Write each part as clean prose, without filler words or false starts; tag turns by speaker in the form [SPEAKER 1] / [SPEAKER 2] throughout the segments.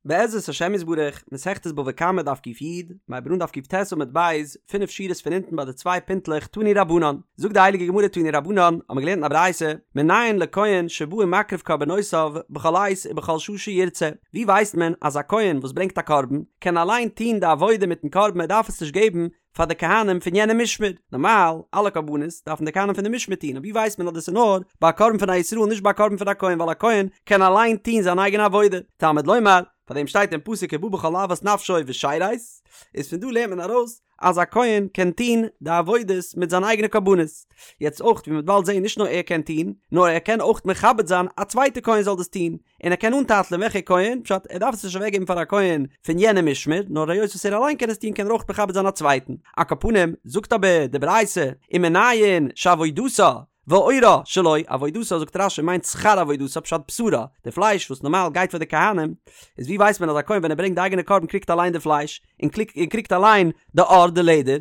[SPEAKER 1] בעזרת השם יתברך, מסכת בבא קמא דף ק"י, מ'הייבט אן דף ק"ט עמוד ב', פינף שורות פון אונטן ביי די צוויי פינטלעך תנו רבנן, זאגט די הייליגע גמרא תנו רבנן, האבן מיר געלערנט אין א ברייתא, מנין לכהן שבא ומקריב קרבנותיו בכל עת ובכל שעה שירצה, ווי ווייסט מען אז א כהן וואס ברענגט א קרבן, קען אליין טון די עבודה מיטן קרבן ער דארף עס נישט געבן פאר די כהנים פון יענע משמר, נארמאל אלע קרבנות דארפן די כהנים פון די משמר טון, אבער ווי ווייסט מען אז דאס איז נאר ביי א קרבן פון א ישראל נישט ביי א קרבן פון א כהן ווייל א כהן קען אליין טון זיין אייגענע עבודה, תלמוד לומר, פאר דעם שטייט אין פסוק ובא בכל אות נפשו ושרת, איז פון דא לערנט מען ארויס אז א כהן קען טון די עבודות מיט זיין אייגענע קרבנות, יעצט אויך ווי מ'וועט באלד זען נישט נאר ער קען טון, נאר ער קען אויך מכבד זיין א צווייטע כהן זאל דאס טון, און ער קען אנטייטלען וועלכע כהן, פשט ער דארף עס נישט אוועקגעבן פאר א כהן פון יענע משמר, נאר היות וואס ער אליין קען עס טון קען ער אויך מכבד זיין א צווייטן. על כל פנים, זאגט אבער די ברייתא, ומנין שעבודתה ועורה שלו, עבודתה זאגט רש"י מיינט שכר עבודתה פשט בשרה, די פלייש וואס נארמאל גייט פאר די כהנים, איז ווי ווייסט מען אז א כהן ווען ער ברענגט די אייגענע קרבן קריגט אליין די פלייש, און קריגט אליין די עור די לעדער,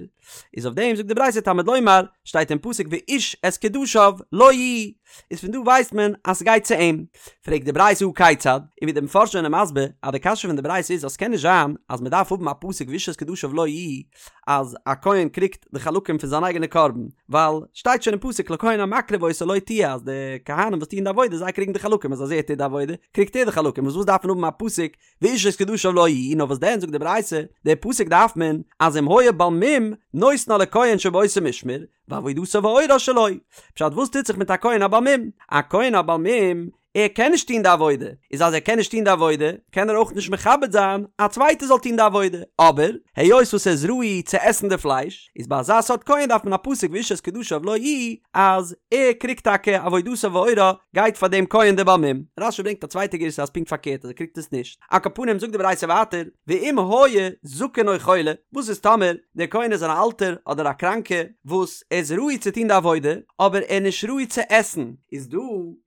[SPEAKER 1] איז אויף דעם זאגט די ברייתא תלמוד לומר, שטייט אין פסוק ואיש את קדשיו לו יהיו, איז פון דא ווייסט מען אז ס'גייט צו אים. פרעגט די ברייתא הא כיצד, און ווי די מפרשים זענען מסביר אז די קשיא פון די ברייתא איז אז ס'קען נישט זיין אז מ'דארף האבן א פסוק ואיש את קדשיו לו יהיו אז א כהן קריגט די חלקים פון זיין אייגענע קרבן, ווייל שטייט שוין אין פסוק לכהן המקריב אותה לו תהיה אז די כהנים וואס טוען די עבודה זיי קריגן די חלקים אז אז ער טוט די עבודה קריגט ער די חלקים וואס וואס דארף מען האבן א פסוק ואיש את קדשיו לו יהיו, נאר וואס דען זאגט די ברייתא, די פסוק דארף מען, אז אם היה בעל מום, נותנה לכהן שבאותו משמר, ועבודתה ועורה שלו. פשט וואס טוט זיך מיט א כהן א בעל מום? א כהן א בעל מום, ער קען נישט טון די עבודה, איז אז ער קען נישט טון די עבודה, קען ער אויך נישט מכבד זיין א צווייטער זאל טון די עבודה, אבער, היות וואס ער איז ראוי צו עסן די פלייש, איז ביי אזא סארט כהן דארף מען א פסוק ואיש את קדשיו לו יהיו, אז ער קריגט טאקע עבודתה ועורה, גייט פאר דעם כהן דער בעל מום. רש"י ברענגט א צווייטע גירסא אז פונקט פארקערט אז ער קריגט עס נישט. על כל פנים זאגט די ברייתא ווייטער, ואם היה זקן או חולה, וואס איז טאמער דער כהן איז אן אלטער אדער א קראנקע וואס ער איז ראוי צו טון די עבודה, אבער ער איז נישט ראוי צו עסן, איז דא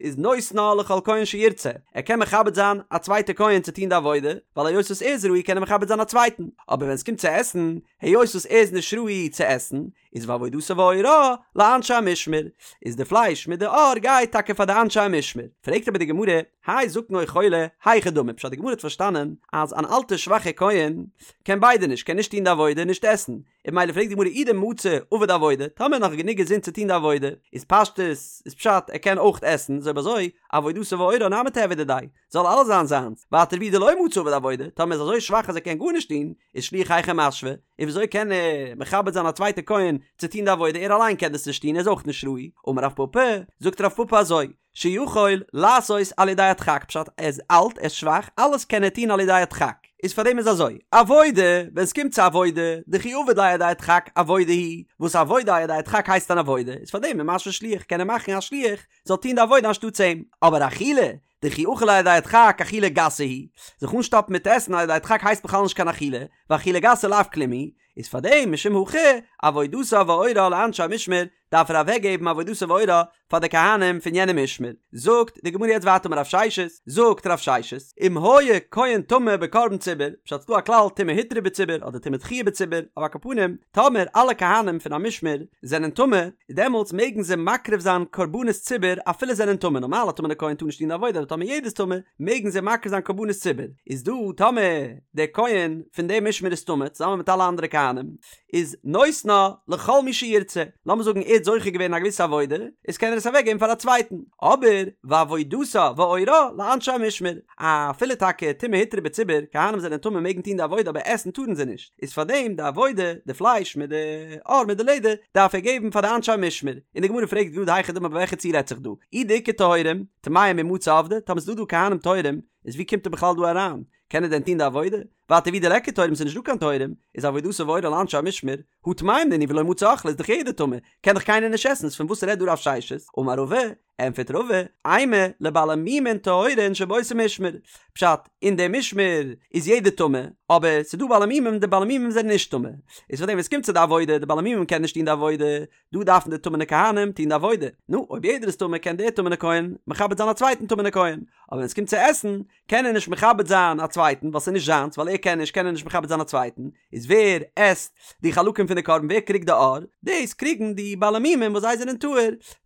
[SPEAKER 1] איז נותנה לכל כהן שירצה, ער קען מכבד זיין א צווייטע כהן צו טון די עבודה, ווייל היות וואס ער איז ראוי קען ער מכבד זיין א צווייטן, אבער ווען עס קומט צו עסן, היות וואס ער איז נישט ראוי צו עסן, איז ועבודתה ועורה לאנשי המשמר, איז די פלייש מיט די עור גייט טאקע פאר די אנשי המשמר. פרעגט אבער די גמרא, האי זקן או חולה, היכי דמי, פשט די גמרא האט פארשטאנען אז אן אלטע שוואכע כהן קען ביידע נישט, קען נישט טון די עבודה און נישט עסן, און ממילא פרעגט די גמרא אי דמצי עביד עבודה, טאמער נאך גענוג געזונט צו טון די עבודה, איז פשטות איז פשט ער קען אויך עסן, איז אויב אזוי עבודתה ועורה נמי תיהוי דידיה, זאל אלעס זיין זיינס, ווייטער ואי דלא מצי עביד עבודה, טאמער איז אזוי שוואך אז ער קען גארנישט טון, איז שליח היכי משוי, און וויאזוי קען ער מכבד זיין א צווייטע כהן צו טון די עבודה, ער אליין קען דאס נישט טון, ער איז אויך נישט ראוי, אמר רב פפא, זאגט רב פפא אזוי, שיכול לעשות על ידי הדחק, פשט ער איז אלט, ער איז שוואך, אלעס קען ער טון על ידי הדחק, איז פארדעם איז אזוי, עבודה, ווען עס קומט צו עבודה, דכי עביד ליה על ידי הדחק עבודה היא, וואס עבודה על ידי הדחק הייסט אן עבודה, איז פארדעם ומשוי שליח קען ער מאכן א שליח זאל טון די עבודה אנשטאטס אים, אבער אכילה, דכי אכיל על ידי הדחק אכילה גסה היא, זיך אנשטאפן מיט עסן על ידי הדחק הייסט בכלל נישט קיין אכילה, ואכילה גסה לאו כלום היא, איז פאר דעם משום הכי עבודתה ועורה לאנשי המשמר דארף ער אוועקגעבן עבודתה ועורה פאר די כהנים פון יענע משמר. זאגט די גמרא יעצט ווייטער אמר רב ששת, זאגט רב ששת, אם היה כהן טמא בקרבן ציבור, פשט ס'דא א כלל טומאה הותרה בציבור אדער טומאה דחויה בציבור, אבער על כל פנים טאמער אלע כהנים פון א משמר זענען טמא, דעמאלטס מעגן זיי מקריב זיין קרבנות ציבור אפילו זענען טמא, נארמאל א טמא'נע כהן טאר נישט טון די עבודה אבער טאמער יעדער איז טמא מעגן זיי מקריב זיין קרבנות ציבור, איז דא טאמער דער כהן פון דעם משמר איז טמא צוזאמען מיט אלע אנדערע כהנים איז נותנה לכל מי שירצה, לאמיר זאגן ער האט זוכה געווען אין א געוויסע עבודה איז קען ער עס אוועק געבן פאר א צווייטן, אבער ועבודתה ועורה לאנשי המשמר, אפילו טאקע טומאה הותרה בציבור, כהנים זענען טמא מעגן טון די עבודה אבער עסן טארן זיי נישט. איז פאר דעם די עבודה, די פלייש מיט די עור מיט די לעדער, דארף ער געבן פאר די אנשי המשמר. און די גמרא פרעגט גראד היכי דמי ביי וועלכע ציור רעדט זיך דא? אי דאיכא טהורים, טמאים מי מצו עבדי, טאמער ס'איז דא דא כהנים טהורים, איז ווי קומט ער בכלל דא אריין? קען ער דען טון די עבודה? ווייטער ואי דליכא טהורים ס'איז נישט דא קיין טהורים, איז עבודתה ועורה לאנשי המשמר, הא טמאים נינהו ולא מצו אכלי איז דאך יעדער טמא, קען דאך קיינער נישט עסן, איז פון וואס רעדט דא רב ששת? אמר רבא, ענטפערט רבא, אימא לבעלי מומין טהורין שבאותו משמר, פשט, אין די משמר איז יעדער טמא, אבער ס'איז דא בעלי מומים די בעלי מומים זענען נישט טמא, איז פארדעם ווען ס'קומט צו די עבודה, די בעלי מומים קענען נישט טון די עבודה, דא דארפן די טמא'נע כהנים טון די עבודה, נו, אויב יעדער איז טמא קען דער טמא'נע כהן מכבד זיין א צווייטן טמא'נע כהן, אבער ווען ס'קומט צו עסן, קען ער נישט מכבד זיין א צווייטן ווייל ס'איז נישט זיינס ווייל ער קען נישט קען ער נישט מכבד זיין א צווייטן, איז ווער עסט די חלקים פון די קרבן ווער קריגט די עור? דאס קריגן די בעלי מומים וואס זיי זענען טהור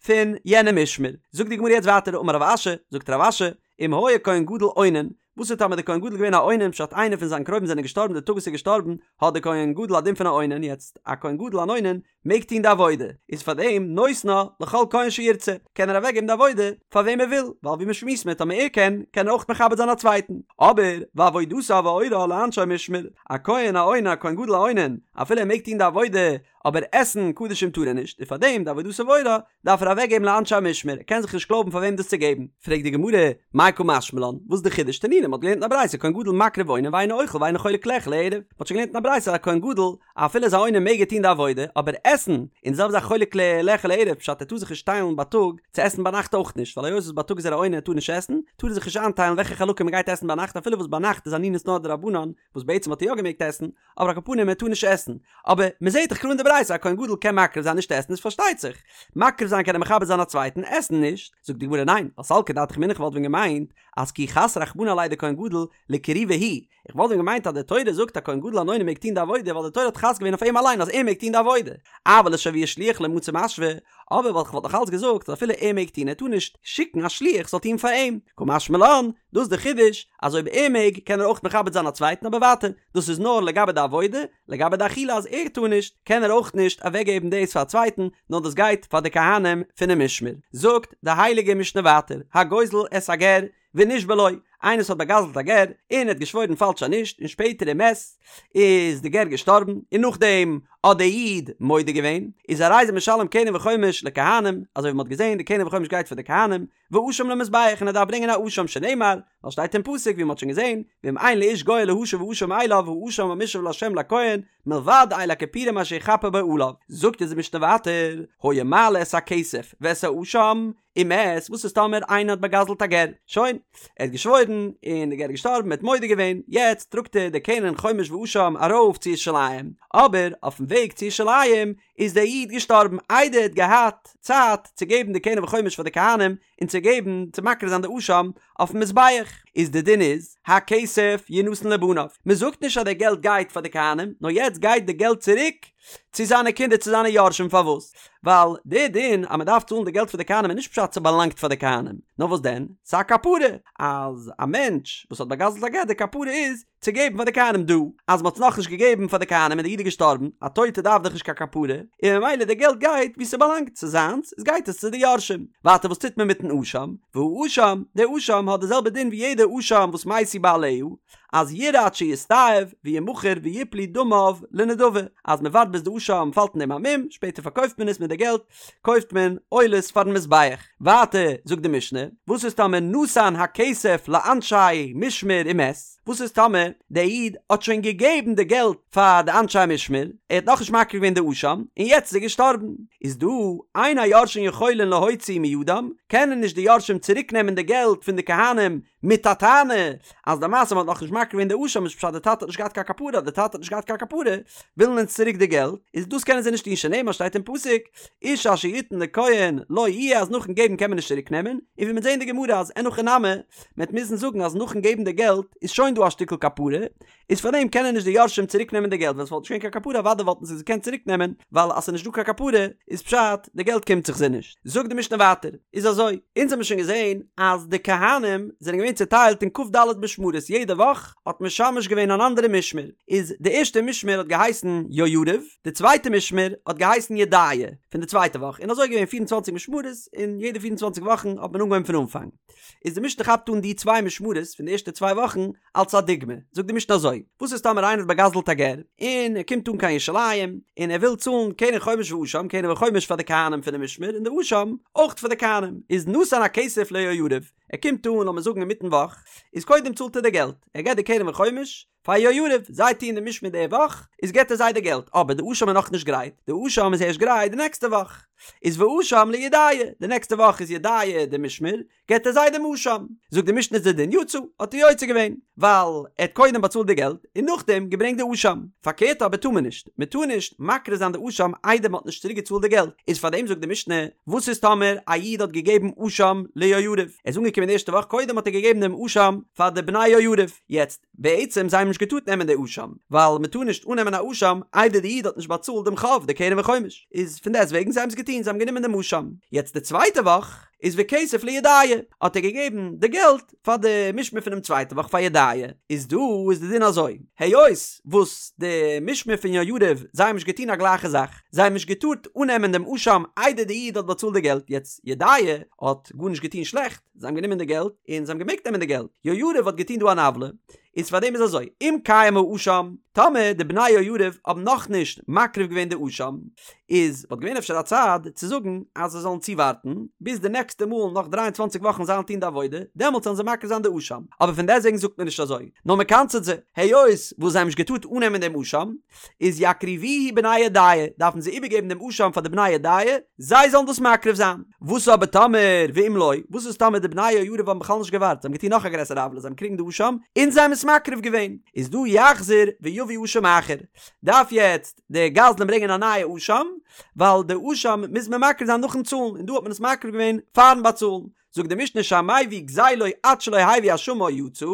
[SPEAKER 1] פון יענע משמר. זאגט די גמרא יעצט ווייטער אמר רב אשי, זאגט רב אשי, אם היה כהן גדול אונן, וואס איז טאמער די כהן גדול געווען א אונן פשט איינער פון זיין קרובים זענען געשטארבן די טאג וואס ער איז געשטארבן האט די כהן גדול א דין פון א אונן יעצט א כהן גדול אן אונן מעג טון די עבודה איז פאר דעם נותנה לכל כהן שירצה קען ער אוועק געבן די עבודה פאר וועם ער וויל ווייל ווי מ'שמועסט מיט טאמער ער קען קען ער אויך מכבד זיין א צווייטן אבער ועבודתה ואורה לאנשי משמר א כהן א אונן א כהן גדול א אונן אפילו ער מעג טון די עבודה אבער עסן קדשים טאר ער נישט און פאר דעם די עבודתה ואורה דארף ער אוועקגעבן לאנשי המשמר, ער קען זיך נישט קלויבן פאר וועם דאס צו געבן. פרעגט די גמרא, מאי קא משמע לן, וואס איז די חידוש? תנינא, מ'האט געלערנט אין א ברייתא כהן גדול מקריב ואונן ואינו אוכל ואינו חולק לאכול לערב, מ'האט שוין געלערנט אין א ברייתא אז א כהן גדול אפילו איז א אונן מעג ער טון די עבודה, אבער עסן, און די זעלבע זאך חולק לאכול לערב, פשט ער טאר זיך נישט טיילן בייטאג צו עסן ביינאכט אויך נישט, ווייל היות וואס בייטאג איז ער א אונן ער טאר נישט עסן, טאר ער זיך נישט איינטיילן וועלכע חלקים מ'גייט עסן ביינאכט אפילו וואס ביינאכט איז אנינות נאר דרבנן, וואס בעצם האט ער יא געמעגט עסן, אבער על כל פנים ער טאר נישט עסן, אבער מען זעט דאך קלאר אין די ברייתא א כהן גדול קען מקריב זיין נישט עסן איז פארשטייט זיך, מקריב זיין קען ער מכבד זיין א צווייטן, עסן נישט, זאגט די גמרא ניין, ווייל סלקא דעתך אמינא כ'וואלט ווען געמיינט אז כי חס רחמנא עליה דכהן גדול לקרובי הוא, איך וואלט ווען געמיינט אז די תורה זאגט א כהן גדול אן אונן מעג טון די עבודה ווייל די תורה האט חס געווען אויף אים אליין אז ער מעג טון די עבודה, אבל לשויי שליח לא מצי משוה, אבער ווייל כ'וואלט נאך אלץ געזאגט אז אפילו ער מעג טון ער טאר נישט שיקן א שליח זאל טון פאר אים, קא משמע לן, דאס איז די חידוש אז אויב ער מעג קען ער אויך מכבד זיין א צווייטן אבער ווייטער דאס איז נאר לגבי די עבודה, לגבי די אכילה אז ער טאר נישט קען ער אויך נישט אוועקגעבן דאס פאר א צווייטן נאר דאס גייט פאר די כהנים פונעם משמר. זאגט די הייליגע משנה ווייטער הגוזל את הגר ונשבע לו, איינער וואס האט באגזלט א גר און ער האט געשוואוירן פאלש אז נישט און שפעטער ומת איז די גר געשטארבן און נאכדעם האט דער איד מודה געווען איז הרי זה משלם קרן וחומש לכהנים אזוי ווי מען האט געזען די קרן וחומש גייט פאר די כהנים ואשם למזבח און ער דארף ברענגען א אשם שנאמר ווייל שטייט אין פסוק ווי מען האט שוין געזען ואם אין לאיש גואל להשיב האשם אליו האשם המושב לה' לכהן מלבד איל הכפורים אשר יכפר בו עליו זאגט אונז די משנה ווייטער היה מעלה את הכסף ואת האשם ומת, וואס איז טאמער איינער האט באגזלט א גר? שוין, ער האט געשוואוירן, און די גר איז געשטארבן, ער האט מודה געווען, יעצט טראגט ער די קרן חומש ואשם ארויף צו ירושלים, אבער אויפן וועג צו ירושלים איז דער איד געשטארבן איידער ער האט געהאט צייט צו געבן די קרן וחומש פאר די כהנים און צו געבן צו מקריב זיין די אשם אויפן מזבח, איז די דין איז, הכסף ינתן לבניו, מען זאגט נישט אז די געלט גייט פאר די כהנים, נאר יעצט גייט די געלט צוריק צו זיינע קינדער צו זיינע יורשים פארוואס? ווייל די דין אז מען דארף צאלן די געלט פאר די כהנים איז נישט פשט ס'באלאנגט פאר די כהנים, נאר וואס דען? ס'איז א כפרה אז א מענטש וואס האט באגזלט א גר די כפרה איז צו געבן פאר די כהנים דא אז מען האט עס נאכנישט געגעבן פאר די כהנים און די איד איז געשטארבן, א טויטע דארף דאך נישט קיין כפרה, און ממילא די געלט גייט וואו ס'באלאנגט, ס'איז זיינס, איז גייט עס צו די יורשים. ווייטער וואס טוט מען מיטן אשם? והאשם, די אשם האט די זעלבע דין ווי יעדע אשם וואס מתו בעליה, אז ירעה עד שיסתאב וימכר ויפלו דמיו לנדבה, אז מען ווארט ביז די אשם פאלט אין דעם א מום, שפעטער פארקויפט מען עס מיט די געלט קויפט מען עולות פארן מזבח. ווייטער זאגט די משנה, וואס איז טאמער נתן הכסף לאנשי משמר ומת, וואס איז טאמער דער איד האט שוין געגעבן די געלט פאר די אנשי משמר, ער האט נאכנישט מקריב געווען די אשם, און יעצט איז ער געשטארבן, איז דא אין היורשין יכולין להוציא מידם, קענען נישט די יורשים צוריק נעמען די געלט פון די כהנים מיט א טענה אז למעשה מ'האט נאכנישט מקריב געווען די אשם איז פשט די טאטע האט נישט געהאט קיין כפרה אז די טאטע האט נישט געהאט קיין כפרה ווילן אונז צוריק די געלט איז דאס קענען זיי נישט טון שנאמר שטייט אין פסוק איש אשר יתן לכהן לו יהיה אז נאכן געבן קען מען נישט צוריק נעמען און ווי מ'וועט זעהן אין די גמרא אז אין הכי נמי מ'וועט מוזן זאגן אז נאכן געבן די געלט איז שוין דא א שטיקל כפרה איז פארדעם קענען נישט די יורשים צוריק נעמען די געלט ווען ס'וואלט נישט געווען קיין כפרה אוודאי וואלטן זיי עס געקענט צוריק נעמען ווייל אז ס'איז נישט דא קיין כפרה איז פשט די געלט קומט זיך זיי נישט. זאגט די משנה ווייטער איז אזוי אונז האבן שוין געזען אז די כהנים זענען געווען צוטיילט אין כ"ד משמרות יעדע וואך האט משמש געווען אן אנדערע משמר איז די ערשטע משמר האט געהייסן יהויריב די צווייטע משמר האט געהייסן ידעיה פון די צווייטע וואך און אזוי איז געווען פיר און צוואנציג משמרות און יעדע פיר און צוואנציג וואכן האט מען אנגעהויבן פון אנפאנג איז די משנה כאפט אן די צוויי משמרות פון די ערשטע צוויי וואכן אלס א דוגמא, זאגט די משנה אזוי, וואס איז טאמער איינער האט באגזלט א גר, און ער קומט אן קיין ירושלים, און ער וויל צאלן קרן חומש ואשם, קרן וחומש פאר די כהנים פונעם משמר, און די אשם אויך פאר די כהנים, איז נתן הכסף ליהויריב, ער קומט אן לאמיר זאגן אינמיטן וואך, איז קודם צאלט ער די געלט, ער געט די קרן וחומש פאר יהויריב, זיי טוען די משמר די וואך, איז געט ער זיי די געלט, אבער די אשם איז נאכנישט גרייט, די אשם איז ערשט גרייט די נעקסטע וואך, איז ואשם לידעיה, די נעקסטע וואך איז ידעיה די משמר, געט ער זיי דעם אשם. זאגט די משנה איז די דין יצא, האט ער יוצא געווען, ווייל ער האט קודם באצאלט די געלט און נאכדעם געברענגט די אשם. פארקערט אבער טאר מען נישט, מען טאר נישט מקריב זיין די אשם איידער מען האט נישט צוריק געצאלט די געלט. איז פארדעם זאגט די משנה, וואס איז טאמער א איד האט געגעבן אשם ליהויריב, ער איז אנגעקומען די ערשטע וואך קודם האט ער געגעבן דעם אשם פאר די בני יהויריב, יעצט בעצם זיי האבן. נישט געטארט נעמען די אשם, ווייל מען טאר נישט אננעמען א אשם איידער די איד האט נישט באצאלט דעם חוב, די קרן וחומש, איז פון דעסט וועגן זיי האבן עס געטון, זיי האבן גענומען דעם אשם. יעצט די צווייטע וואך איז וכסף לידעיה, האט ער געגעבן די געלט פאר די משמר פונעם צווייטע וואך פאר ידעיה, איז דא איז די דין אזוי, היות וואס די משמר פון יהויריב זיי האבן נישט געטון א גלייכע זאך, זיי האבן נישט געטארט אננעמען דעם אשם איידער די איד האט באצאלט די געלט, יעצט ידעיה האט גארנישט געטון שלעכט, זיי האבן גענומען די געלט און זיי האבן געמעגט נעמען די געלט, יהויריב האט געטון דא אן עוולה, איז פאר דעם איז אזוי, אם קיים האשם, טאמער די בני יהויריב האבן נאכנישט מקריב געווען די אשם, איז וואלט געווען אפשר א צד צו זאגן אז זיי זאלן צואווארטן ביז די נעקסטע מאל נאך דריי און צוואנציג וואכן זיי וועלן טון די עבודה, דעמאלטס זאלן זיי מקריב זיין די אשם, אבער פון דעסטוועגן זאגט מען נישט אזוי, נאר מען קנס'עט זיי, היות וואס זיי האבן נישט געטארט אננעמען דעם אשם, איז יקריבוהו בני ידעיה, דארפן זיי איבערגעבן דעם אשם פאר די בני ידעיה, זיי זאלן דאס מקריב זיין. וואס אבער טאמער, ואם לא, וואס איז טאמער די בני יהויריב האבן בכלל נישט געווארט, זיי האבן געטון נאך א גרעסערע עוולה, זיי האבן געקריגן די אשם, און זיי האבן עס מקריב געווען, איז דא יחזיר ויביא אשם אחר, דארף יעצט די גזלן ברענגען א נייע אשם, ווייל די אשם מוז מען מקריב זיין נאכן צאלן, און דא האט מען עס מקריב געווען פארן באצאלן. זאגט די משנה שהמביא גזילו עד שלא הביא אשמו יצא,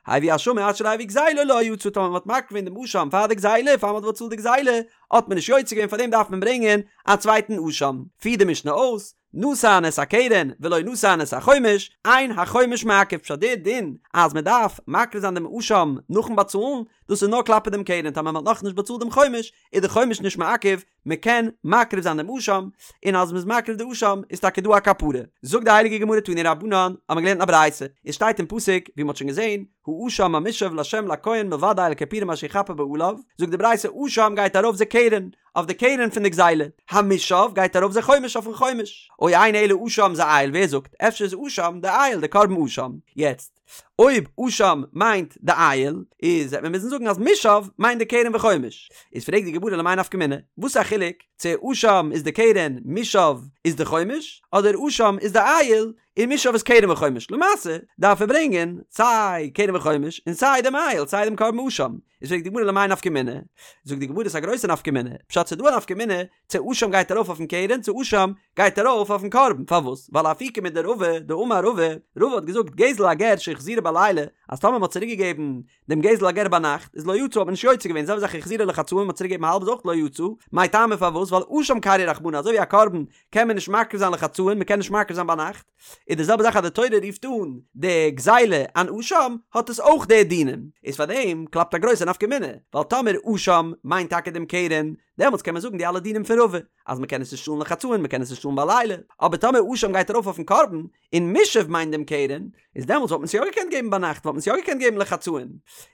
[SPEAKER 1] הביא אשמו עד שלא הביא גזילו לא יצא, טאמער מען האט מקריב געווען דעם אשם פאר די גזילה, פאר מען האט באצאלט די גזילה, האט מען נישט יוצא געווען פארדעם דארף מען ברענגען א צווייטן אשם. פירט די משנה אויס, נתן את הקרן ולא נתן את החומש, אין החומש מעכב, פשט דער דין אז מען דארף מקריב זיין דעם אשם נאכן באצאלן, דאס איז נאר כלפי דעם קרן, טאמער מען האט נאכנישט באצאלט דעם חומש, איז די חומש נישט מעכב, מען קען מקריב זיין דעם אשם, און אז מען איז מקריב די אשם איז טאקע דא א כפרה. זאגט די הייליגע גמרא תנו רבנן, האט מען געלערנט א ברייתא, עס שטייט אין פסוק, ווי מען האט שוין געזען, האשם המושב לה' לכהן מלבד איל הכפורים אשר יכפר בו עליו, זאגט די ברייתא אשם גייט ארויף זה קרן, אויף די קרן פון די גזילה, המושב גייט ארויף זה חומש אויפן חומש, או אינו אלא אשם זה איל, ווער זאגט, אפשר איז אשם די איל, די קרבן אשם, יעצט. אויב אשם מיינט די איל, איז וועט מען מוזן זאגן אז מושב מיינט די קרן וחומש. איז פרעגט די גמרא למאי נפקא מינה, וואס איז א חילוק צו אשם איז די קרן מושב איז די חומש, אדער אשם איז די איל און מושב איז קרן וחומש. למעשה דארף ער ברענגען סיי קרן וחומש און סיי דעם איל סיי דעם קרבן אשם. איז פרעגט די גמרא למאי נפקא מינה, זאגט די גמרא ס'איז א גרויסע נפקא מינה, פשט ס'איז דא א נפקא מינה צו אשם גייט ארויף אויפן קרן צו אשם גייט ארויף אויפן קרבן, פארוואס? ווייל לאפוקי מדרבא דאמר רבא, רבא האט געזאגט גזל הגר שהחזירו בלילה, אז טאמער מ'האט צוריק געגעבן דעם גזל הגר ביינאכט איז לא יצא האט מען נישט יוצא געווען, זעלבע זאך החזירו לחצאין מ'האט צוריק געגעבן האלב איז אויך לא יצא, מאי טעמא פארוואס? ווייל אשם קרייה רחמנא אזוי ווי א קרבן קען מען נישט מקריב זיין לחצאין מ'קען נישט מקריב זיין ביינאכט, איז די זעלבע זאך אז די תורה רופט אן די גזילה אן אשם האט עס אויך די דינים, איז פארדעם קלאפט א גרויסע נפקא מינה, ווייל טאמער אשם מיינט טאקע דעם קרן דעמאלטס קען מען זאגן די אלע דינים פון רבא, אז מען קען עס נישט צאלן לחצאין, מען קען עס נישט צאלן בלילה, אבער טאמער אשם גייט ארויף אויפן קרבן, און מושב מיינט דעם קרן, איז דעמאלטס וואלט מען עס יא געקענט געבן ביינאכט, וואלט מען עס יא געקענט געבן לחצאין.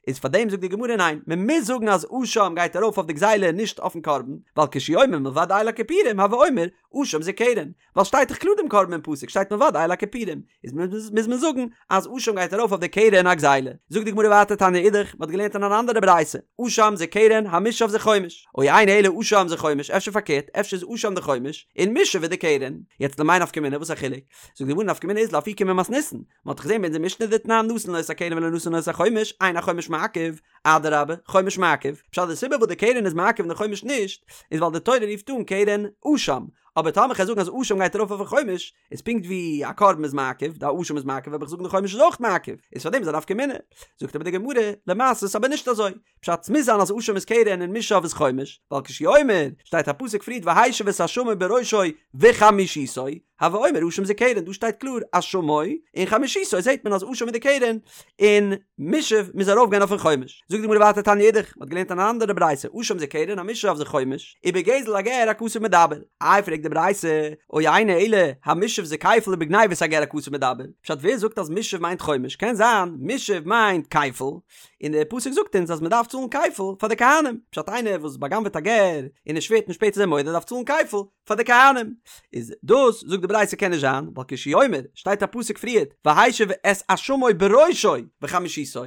[SPEAKER 1] איז פאר דעם זאגט די גמרא ניין, מען מוז זאגן אז אשם גייט ארויף אויף די גזילה און נישט אויפן קרבן, ווייל כשהוא אומר מלבד איל הכפורים הוי אומר אשם זה קרן, ווייל שטייט דאך קלאר דעם קרבן אין פסוק שטייט מלבד איל הכפורים, איז מוז מען זאגן אז אשם גייט ארויף אויף די קרן הגזילה. זאגט די גמרא ווייטער תניא אידך, מען האט געלערנט אין אן אנדערע ברייתא, אשם זה קרן, המושב זה חומש, או אינו אלא אשם זה חומש, אפשר פארקערט, אפשר איז אשם די חומש, און מושב איז די קרן. יעצט למאי נפקא מינה, וואס איז א חילוק? זאגט די גמרא נפקא מינה איז לאפוקי ממתניתין, מען האט דאך געזען ביי אונזער משנה דתנן נתן לו את הקרן ולא נתן לו את החומש, אין החומש מעכב, אדרבה, חומש מעכב, פשט די סיבה וואס די קרן איז מעכב און די חומש נישט, איז ווייל די תורה רופט אן קרן אשם, אבער טאמער כ'גיי זאגן אז אשם גייט ארויף אויפן חומש, איז פונקט ווי א קרבן איז מעכב, די אשם איז מעכב, וועל איך זאגן די חומש איז אויך מעכב, איז פארדעם איז א נפקא מינה. זאגט אבער די גמרא, למעשה איז אבער נישט אזוי, פשט ס'מוז זיין אז אשם איז קרן און מושב איז חומש, ווייל כשהוא אומר, שטייט א פסוק פריערט והשיב את אשמו בראשו וחמישיתו, הוי אומר אשם זה קרן, דא שטייט קלאר אשמו און חמישיתו זעט מען אז אשם איז די קרן און מושב מוז ארויף גיין אויפן חומש. זאגט די גמרא ווייטער תניא אידך, מ'האט געלערנט אן אנדערע ברייתא, אשם זה קרן המושב זה חומש, ובגזל הגר הכתוב מדבר. איי פרעגט די ברייתא, או אינו אלא המושב זה כפל ובגניבת הגר הכתוב מדבר, פשט ווער זאגט אז מושב מיינט חומש, קען זיין מושב מיינט כפל, און דער פסוק זאגט אונז אז מ'דארף צאלן כפל פאר די כהנים, פשט איינער וואס בא'גנב'עט א גר און ער שווערט און שפעטער איז ער מודה דארף צאלן כפל, פאר די כהנים, איז דאס זאגט די ברייתא קען נישט זיין, ווייל כשהוא אומר, שטייט א פסוק פריערט, והשיב את אשמו בראשו וחמישיתו,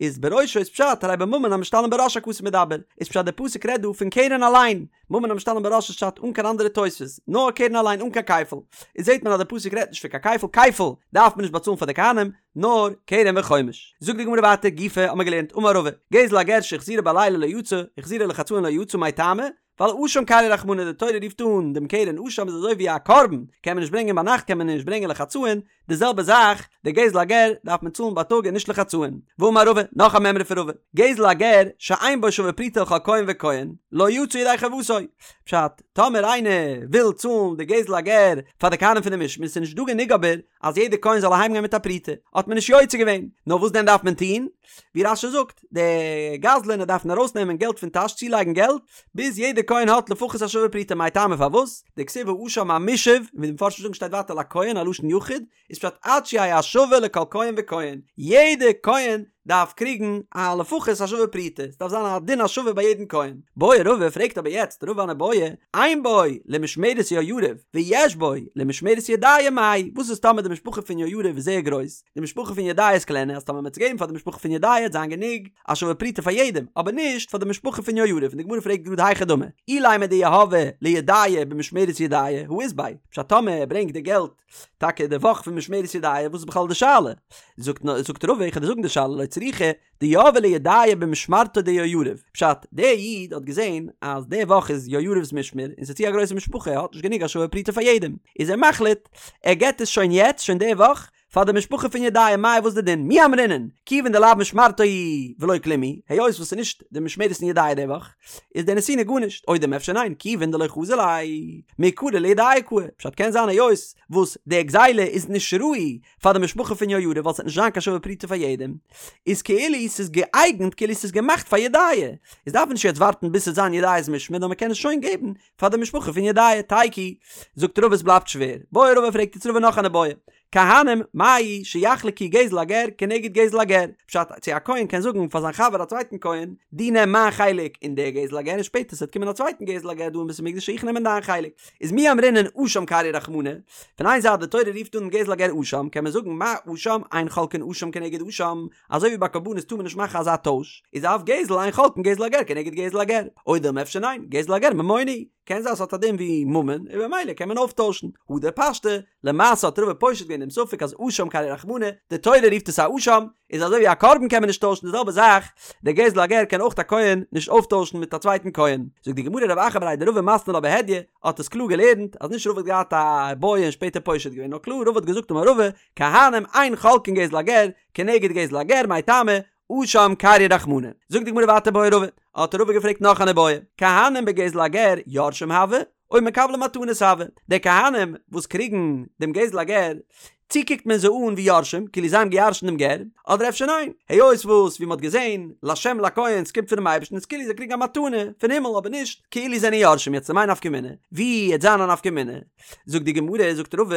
[SPEAKER 1] איז בראשו איז פשט הרי בממון המשתלם בראש הכתוב מדבר, איז פשט די פסוק רעדט דא פון קרן אליין, ממון המשתלם בראש איז פשט אן קיין אנדערע תוספות, נאר קרן אליין אן קיין כפל, איז זעט מען אז די פסוק רעדט נישט פון קיין כפל, כפל דארף מען נישט באצאלן פאר די כהנים, נאר קרן וחומש. זאגט די גמרא ווייטער גופא האט מען געלערנט אמר רבא, גזל הגר שהחזירו בלילה לא יצא, החזירו לחצאין לא יצא מאי טעמא, ווייל אשם קרייה רחמנא די תורה רופט אן דעם קרן אשם איז אזוי ווי א קרבן, קען מען נישט ברענגען ביינאכט קען מען נישט ברענגען לחצאין, די זעלבע זאך, די גזל הגר דארף מען צאלן בייטאג און נישט לחצאין. ואמר רבא, נאך א מימרא פון רבא, גזל הגר שאין בו שווה פרוטה לכל כהן וכהן, לא יצא ידי חובתו. פשט, טאמער איינער וויל צאלן די גזל הגר פאר די כהנים פון די משמר, ס'איז נישט דא גענוג אבער אז יעדער כהן זאל אהיימגיין מיט א פרוטה, האט מען נישט יוצא געווען, נאר וואס דען דארף מען טון? ווי רש"י זאגט, די גזלן דארפן ארויסנעמען געלט פון טאש צולייגן געלט, ביז יעדער כהן האט לפחות א שווה פרוטה מאי טעמא פארוואס? דכתיב האשם המושב, ווי די מפרשים זאגן שטייט ווייטער לכהן א לשון יחיד, איז פשט עד שיהא השווה לכל כהן וכהן, יעדע כהן דארף קריגן א לפחות א שווה פרוטה, ס'דארף זיין א דין השווה ביי יעדן כהן. בעי רבא פרעגט אבער יעצט רבא אן איבעיא, אין בו למשמרת יהויריב ויש בו למשמרת ידעיה מאי, וואס איז טאמער די משפחה פון יהויריב איז זייער גרויס, די משפחה פון ידעיה איז קלענער, אז טאמער מ'וועט עס געבן פאר די משפחה פון ידעיה וועט זיין גענוג א שווה פרוטה פאר יעדעם, אבער נישט פאר די משפחה פון יהויריב, און די גמרא פרעגט גראד היכי דמי, אילימא דיהביה לידעיה במשמרת ידעיה, הא אית ביה, פשט טאמער ער ברענגט די געלט טאקע די וואך פון משמרת ידעיה וואס איז בכלל די שאלה? זאגט זאגט רבא איך וועל דיר זאגן די שאלה לא צריכא דיהביה לידעיה במשמרתו דיהויריב פשט דער איד האט געזען אז די וואך איז יהויריב'ס משמר און ס'איז צו א גרויסע משפחה ער האט נישט גענוג א שווה פרוטה פאר יעדעם איז ער מחליט ער געט עס שוין יעצט שוין די וואך פאר די משפחה פון ידעיה מאי וואס די דין מי אמרינן כיוון דלאו משמרתו היא ולא כלום הוא היות וואס ס'איז נישט די משמרת פון ידעיה די וואך איז די נתינה גארנישט, או דילמא אפשר ניין, כיוון דלא חזי ליה, מעיקרא לידעיה קאי, פשט קען זיין היות וואס די גזילה איז נישט ראוי פאר די משפחה פון יהויריב ווייל ס'וועט נישט זיין קיין שווה פרוטה פאר יעדעם, איז כאילו ס'איז געאייגנט כאילו ס'איז געמאכט פאר ידעיה, איז דארף מען נישט יעצט ווארטן ביז ס'וועט זיין ידעיה'ס משמר נאר מ'קען עס שוין געבן פאר די משפחה פון ידעיה, תיקו, זאגט רבא עס בלייבט שווער, בעי רבא פרעגט יעצט רבא נאך אן איבעיא, כהנים, מהו שיחלקו גזל הגר כנגד גזל הגר, פשט, צו א כהן קען זאגן פאר זיין חבר א צווייטן כהן, דו נעם מיין חלק אין די גזל הגר און שפעטער ס'וועט קומען א צווייטן גזל הגר דא אין בית המקדש איך נעמען דיין חלק. איז מי אמרינן אשם קרייה רחמנא, פון איין זייט די תורה רופט אן גזל הגר אשם, קען מען זאגן מה אשם אין חולקין אשם כנגד אשם, אזוי ווי ביי קרבנות טאר מען נישט מאכן אזא טויש, איז אף גזל אין חולקין גזל הגר כנגד גזל הגר, או דילמא אפשר ניין, גזל הגר ממונא הוא. קען זיין ס'האט א דין ווי ממון און במילא קען מען אויפטוישן. הדר פשטה, למעשה האט רבא פושט געווען דעם ספק אז אשם קרייה רחמנא, די תורה רופט עס א אשם, איז אזוי ווי א קרבן קען מען נישט טוישן די זעלבע זאך, דער גזל הגר קען אויך א כהן נישט אויפטוישן מיט א צווייטן כהן. זאגט די גמרא רב אחא בריה דרבא מתני לה בהדיא, האט עס קלאר געלערנט אז נישט רבא האט געהאט א איבעיא און שפעטער פושט געווען נאר קלאר רבא האט געזאגט אמר רבא, כהנים אין חולקין גזל הגר כנגד גזל הגר מאי טעמא, אשם קרייה רחמנא. זאגט די גמרא ווייטער בעי רבא, האט רבא געפרעגט נאך אן איבעיא, כהנים בגזל הגר יורשים הוו, או מקבלי מתנות הוו, די כהנים וואס קריגן דעם גזל הגר, צי קוקט מען זיי אן ווי יורשים, כאילו זיי האבן געירשנט דעם גר, אדער אפשר ניין, היות וואס ווי מען האט געזען, לשם לכהן, ס'קומט פונעם אייבערשטן, איז כאילו זיי קריגן א מתנה פון הימל אבער נישט כאילו זיי זענען יורשים, יעצט למאי נפקא מינה, ווי העט זיין א נפקא מינה? זאגט די גמרא, זאגט רבא,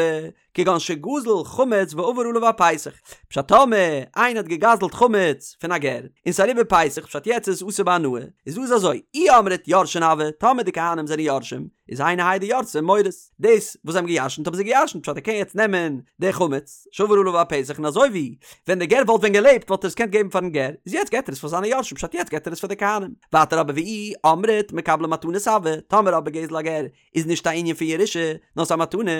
[SPEAKER 1] כגון שגזל חמץ ועבר עליו הפסח, פשט טאמער איינער האט געגזלט חמץ פון א גר, און ס'איז אריבער פסח פשט יעצט איז עס אסור בהנאה, איז דא איז אזוי, אי אמרת יורשין הוו, טאמער די כהנים זענען יורשים, איז היינו האי דירתי מורית, דאס וואס זיי האבן געירשנט האבן זיי געירשנט פשט ער קען יעצט נעמען די חמץ שעבר עליו הפסח און אזוי ווי ווען די גר וואלט ווען געלעבט וואלט ער עס געקענט געבן פארן גר, איז יעצט געט ער עס פאר זיינע יורשים פשט יעצט געט ער עס פאר די כהנים, ווייטער אבער ואי אמרת מקבלי מתנות הוו, טאמער אבער גזל הגר איז נישט א ענין פון ירושה, נאר ס'איז א מתנה,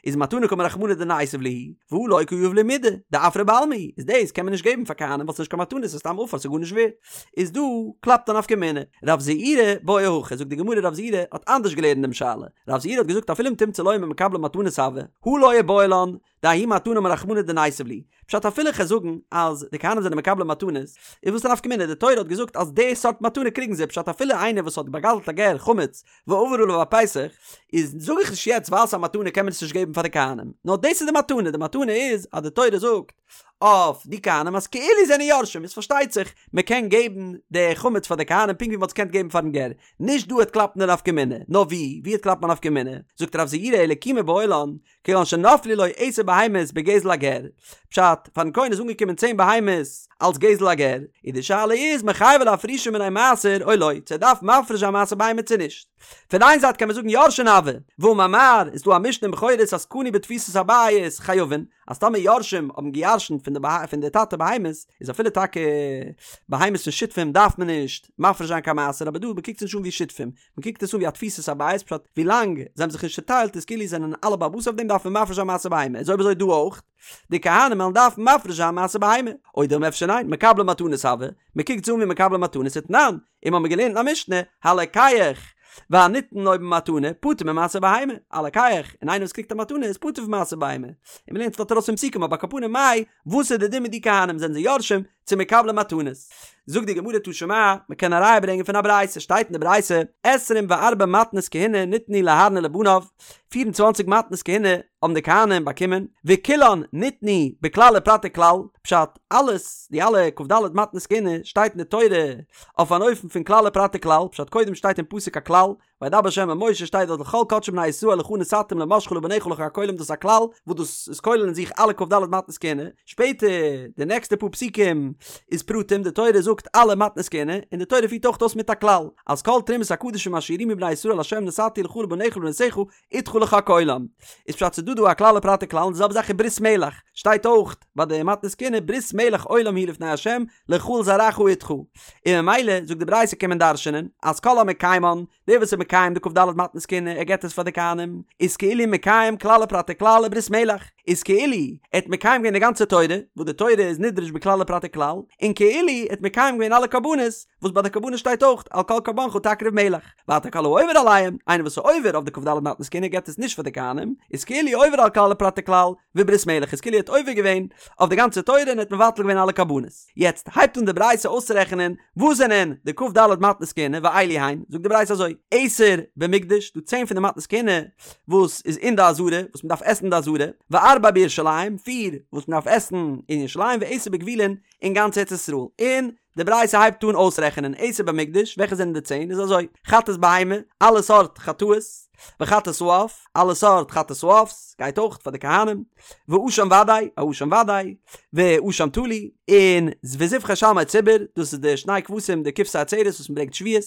[SPEAKER 1] איז מתנה קאמר רחמנא דניתיב להו, והא לא קא יהיב להו מידי, דעפרא בעלמא הוא, איז דאס קען מען נישט געבן פאר כהנים ווייל ס'איז נישט קיין מתנה ס'איז סתם עפר ס'איז גארנישט ווערט. איז דא קלאפט א נפקא מינה. רב זעירא בעי הכי, זאגט די גמרא רב זעירא האט אנדערש געלערנט דעם שאלה, רב זעירא האט געזאגט אפילו אם תמצא לומר מקבלי מתנות הוו, הא לא איבעיא לן, דההיא מתנה אמר רחמנא דניתיב להו. פשט אפילו כ'על זאגן אז די כהנים זענען מקבלי מתנות, איז וואס די נפקא מינה, די תורה האט געזאגט אז די סארט מתנה קריגן זיי, פשט אפילו איינער וואס האט באגזלט א גר חמץ ועבר עליו הפסח, איז זאג איך נישט יעצט ווייל ס'איז א מתנה קען מען עס נישט געבן פאר די כהנים, נאר דאס איז די מתנה, די מתנה איז אז די תורה זאגט אויף די כהנים אז כאילו זענען יורשים, איז פארשטייט זיך מען קען געבן די חמץ פאר די כהנים פונקט ווי מען האט עס געקענט געבן פארן גר, נישט דא העט קלאפן די נפקא מינה, נאר ווי, ווי העט קלאפן א נפקא מינה? זאגט רב זעירא אלא כי מיבעיא לן, כגון שנפלו לו עשר בהמות בגזל הגר, פשט, פארן כהן איז אנגעקומען צען בהמות אלס גזל הגר, און די שאלה איז מיחייבי לאפרושי מינייהו מעשר או לא, צו ער דארף מפריש זיין מעשר בהמה צו נישט. פון איין זייט קען מען זאגן יורשין הוו, והאמר מר, איז דא א משנה אין בכורות אז קנו בתפיסת הבית חייבין, אז טאמער יורשים האבן געירשנט פון די פון די טאטע בהמות, איז אפילו טאקע בהמות פון שותפים דארף מען נישט מפריש זיין קיין מעשר, אבער דא מ'קוקט עס נישט אן ווי שותפים, מען קוקט עס אן ווי א תפיסת הבית פשט ווילאנג זיי האבן זיך נישט צוטיילט איז כאילו זענען אלע בעל הבית אויף דעם דארף מען מפריש זיין מעשר בהמה איז אויב אזוי דא אויך די כהנים וועלן דארפן מפריש זיין מעשר בהמה או דילמא אפשר ניין מקבלי מתנות הוו מען קוקט עס אן ווי מקבלי מתנות ותנן און מ'האמיר געלערנט אין א משנה הלוקח. והניתן לו במתנה פטור ממעשר בהמה, הלוקח, און איינער וואס קריגט א מתנה איז פטור פון מעשר בהמה. און מ'לערנט עס דארט ארויס פון פסוקים אבער על כל פנים מאי, וואס איז די דין מיט די כהנים זענען זיי יורשים צו מקבלי מתנות? זאגט די גמרא תא שמע, מ'קען א ראיה ברענגען פון א ברייתא, שטייט אין די ברייתא, עשרים וארבע מתנות כהונה ניתנו לאהרן ולבניו, 24 מתנות כהונה האבן די כהנים באקומען, וכולן ניתנו בכלל ופרט וכלל, פשט, אלעס, די אלע כ"ד מתנות כהונה שטייט אין די תורה אויף אן אופן פון כלל ופרט וכלל, פשט קודם שטייט אין פסוק א כלל, וידבר ה' אל משה שטייט דארט לכל קדשי בני ישראל לך נתתים למשחה לבניך לחק עולם דאס איז א כלל וואס דאס איז כולל אין זיך אלע כ"ד מתנות כהונה, שפעטער די נעקסטע פאר פסוקים איז פרטים, די תורה זאגט אלע מתנות כהונה, און די תורה פירט אויך אויס מיט א כלל, אז כל תרומת הקדשים אשר ירימו בני ישראל לה' נתתי לך ולבניך ולבנותיך אתך לחק עולם. איז פשט ס'דא דא א כלל ופרט וכלל און די זעלבע זאך איז ברית מלח, שטייט אויך ביי די מתנות כהונה ברית מלח עולם היא לפני ה' לך ולזרעך אתך. און ממילא זאגט די ברייתא קען מען דרש'נען אז כל המקיימן, דער וואס איז מקיים די כ"ד מתנות כהונה ער געבט עס פאר די כהנים, איז כאילו מקיים כלל ופרט וכלל וברית מלח, איז כאילו ער האט מקיים געווען די גאנצע תורה, וואס די תורה איז נדרש בכלל ופרט וכלל, און כאילו ער האט מקיים געווען אלע קרבנות, וואס ביי די קרבנות שטייט אויך על כל קרבנך תקריב מלח, ווייטער כל העובר עליהם, איינער וואס איז עובר אויף די כ"ד מתנות כהונה געבט עס נישט פאר די כהנים, איז כאילו עובר על כלל ופרט וכלל, וברית מלח איז כאילו ער האט עובר געווען אויף די גאנצע תורה און ער האט מבטל געווען אלע קרבנות. יעצט הייבט אן די ברייתא אויסצורעכענען וואס זענען די כ"ד מתנות כהונה ואלו הן, זאגט די ברייתא אזוי, עשר במקדש, דא צען פון די מתנות כהונה וואס איז אין די עזרה, וואס מען דארף עסן אין די עזרה, וארבע בירושלים, פיר וואס מען דארף עסן אין ירושלים, ועשר בגבולין, אין גאנץ ארץ ישראל, און די ברייתא הייבט אן אויסרעכענען עשר במקדש, וועלכע זענען די צען, איז אזוי, חטאת בהמה, אלע סארט חטאות, וחטאת העוף, אלע סארט חטאת העוף'ס, גייט אויך פאר די כהנים, ואשם ודאי, א אשם ודאי, ואשם תלוי, און וזבחי שלמי ציבור, דאס איז די שני כבשים די כבשי עצרת וואס מען ברענגט שבועות,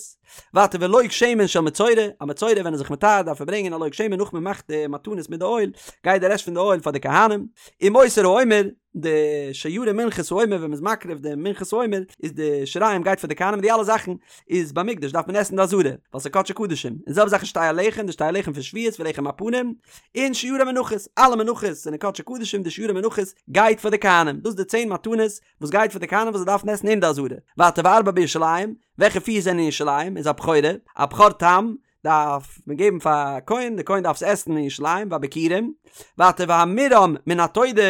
[SPEAKER 1] ווייטער ולוג שמן של מצורע, א מצורע ווען ער איז זיך מטהר דארף ער ברענגען א לוג שמן נאך מען מאכט די מתנות מיט די אויל, גייט די רעשט פון די אויל פאר די כהנים, ומותר העומר, די שיירי מנחת העומר ווען מ'איז מקריב די מנחת העומר איז די שיריים גייט פאר די כהנים די אלע זאכן איז במקדש דארף מען עסן אין די עזרה ווייל ס'איז קדשי קדשים און זעלבע זאך איז שתי הלחם די שתי הלחם פון שבועות ולחם הפנים און שיירי מנחות אלע מנחות זענען קדשי קדשים די שיירי מנחות גייט פאר די כהנים דאס די צען מתנות וואס גייט פאר די כהנים וואס זיי דארפן עסן אין די עזרה ווייטער וארבע בירושלים וועלכע פיר זענען אין ירושלים איז הבכורה א בכור תם דארף מען געבן פאר א כהן, דער כהן דארף עס עסן אין ירושלים והביכורים, ווייטער והמורם מן התודה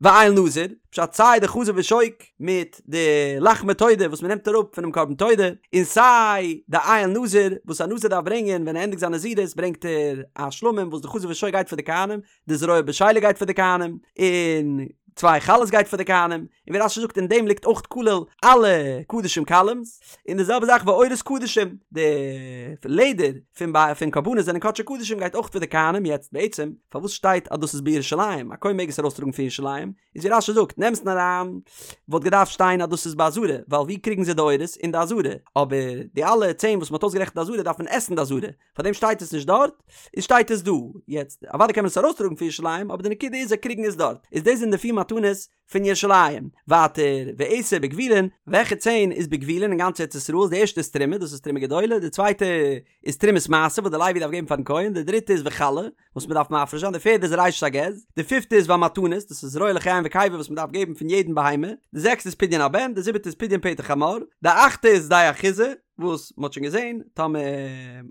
[SPEAKER 1] ואיל נזיר, פשט סיי די חזה ושוק מיט די לחמי תודה וואס מען נעמט אראפ פונעם קרבן תודה, און סיי די איל נזיר וואס א נזיר דארף ברענגען ווען ער ענדיגט זיין נזירות ברענגט ער א שלמים וואס די חזה ושוק גייט פאר די כהנים, די זרוע בשלה גייט פאר די כהנים, און צוויי חלות גייט פאר די כהנים, און ווי רש"י זאגט אין דעם ליגט אויך כולל אלע קדשים קלים'ס, און די זעלבע זאך ועורות קדשים, די לעדער פון ביי פון קרבנות זענען קדשי קדשים גייט אויך פאר די כהנים, יעצט בעצם פארוואס שטייט אז דאס איז בירושלים, א כהן מעג עס ארויסטראגן פון ירושלים, איז ווי רש"י זאגט אין אמת'ן אריין וואלט געדארפט שטיין אז דאס איז בעזרה, ווייל ווי קריגן זיי די עורות? אין די עזרה, אבער די אלע צען וואס מען האט אויסגערעכנט אין די עזרה דארף מען עסן אין די עזרה, פארדעם שטייט עס נישט דארט, איז שטייט עס דא. יעצט, אוודאי קען מען עס ארויסטראגן פון ירושלים, אבער די נקודה איז זיי קריגן עס דארט. איז דאס זענען די פיר מתנות פון ירושלים. ווייטער, ועשר בגבולין, וועלכע צען איז בגבולין אין גאנץ ארץ ישראל, די ערשטע איז תרומה, דאס איז תרומה גדולה, די צווייטע איז תרומת מעשר וואס די לוי דארף געבן פארן כהן, די דריטע איז וחלה, וואס מען דארף מפריש זיין, די פערדע איז ראשית הגז, די פיפטע איז והמתנות, דאס איז זרוע לחיים וקיבה וואס מען דארף געבן פון יעדן בהמה, די זעקסטע איז פדיון הבן, די זיבעטע איז פדיון פטר חמור, די אכטע איז שדה אחוזה, וואס מען האט שוין געזען, טאמער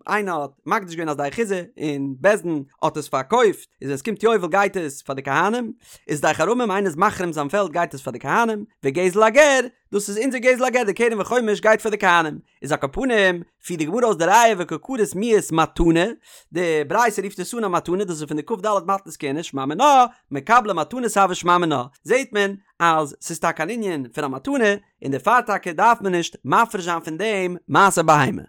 [SPEAKER 1] איינער האט מקדיש געווען א שדה אחוזה און בית דין האט עס פארקויפט, איז ווען עס קומט יובל גייט עס פאר די כהנים, איז שדה חרמים איינער איז מחרים זיין פעלד גייט עס פאר די כהנים, וגזל הגר, דאס איז אונזער גזל הגר די קרן וחומש גייט פאר די כהנים, איז על כל פנים, פירט די גמרא אויס די ראיה וקא קרית מיהת מתנה, די ברייתא רופט עס אן א מתנה, דאס איז פון די כ"ד מתנות כהונה, שמע מינה, מקבלי מתנות הוו שמע מינה, זעט מען אז ס'איז טאקע אן ענין פון א מתנה, און דערפאר טאקע דארף מען נישט מפריש זיין פון דעם מעשר בהמה.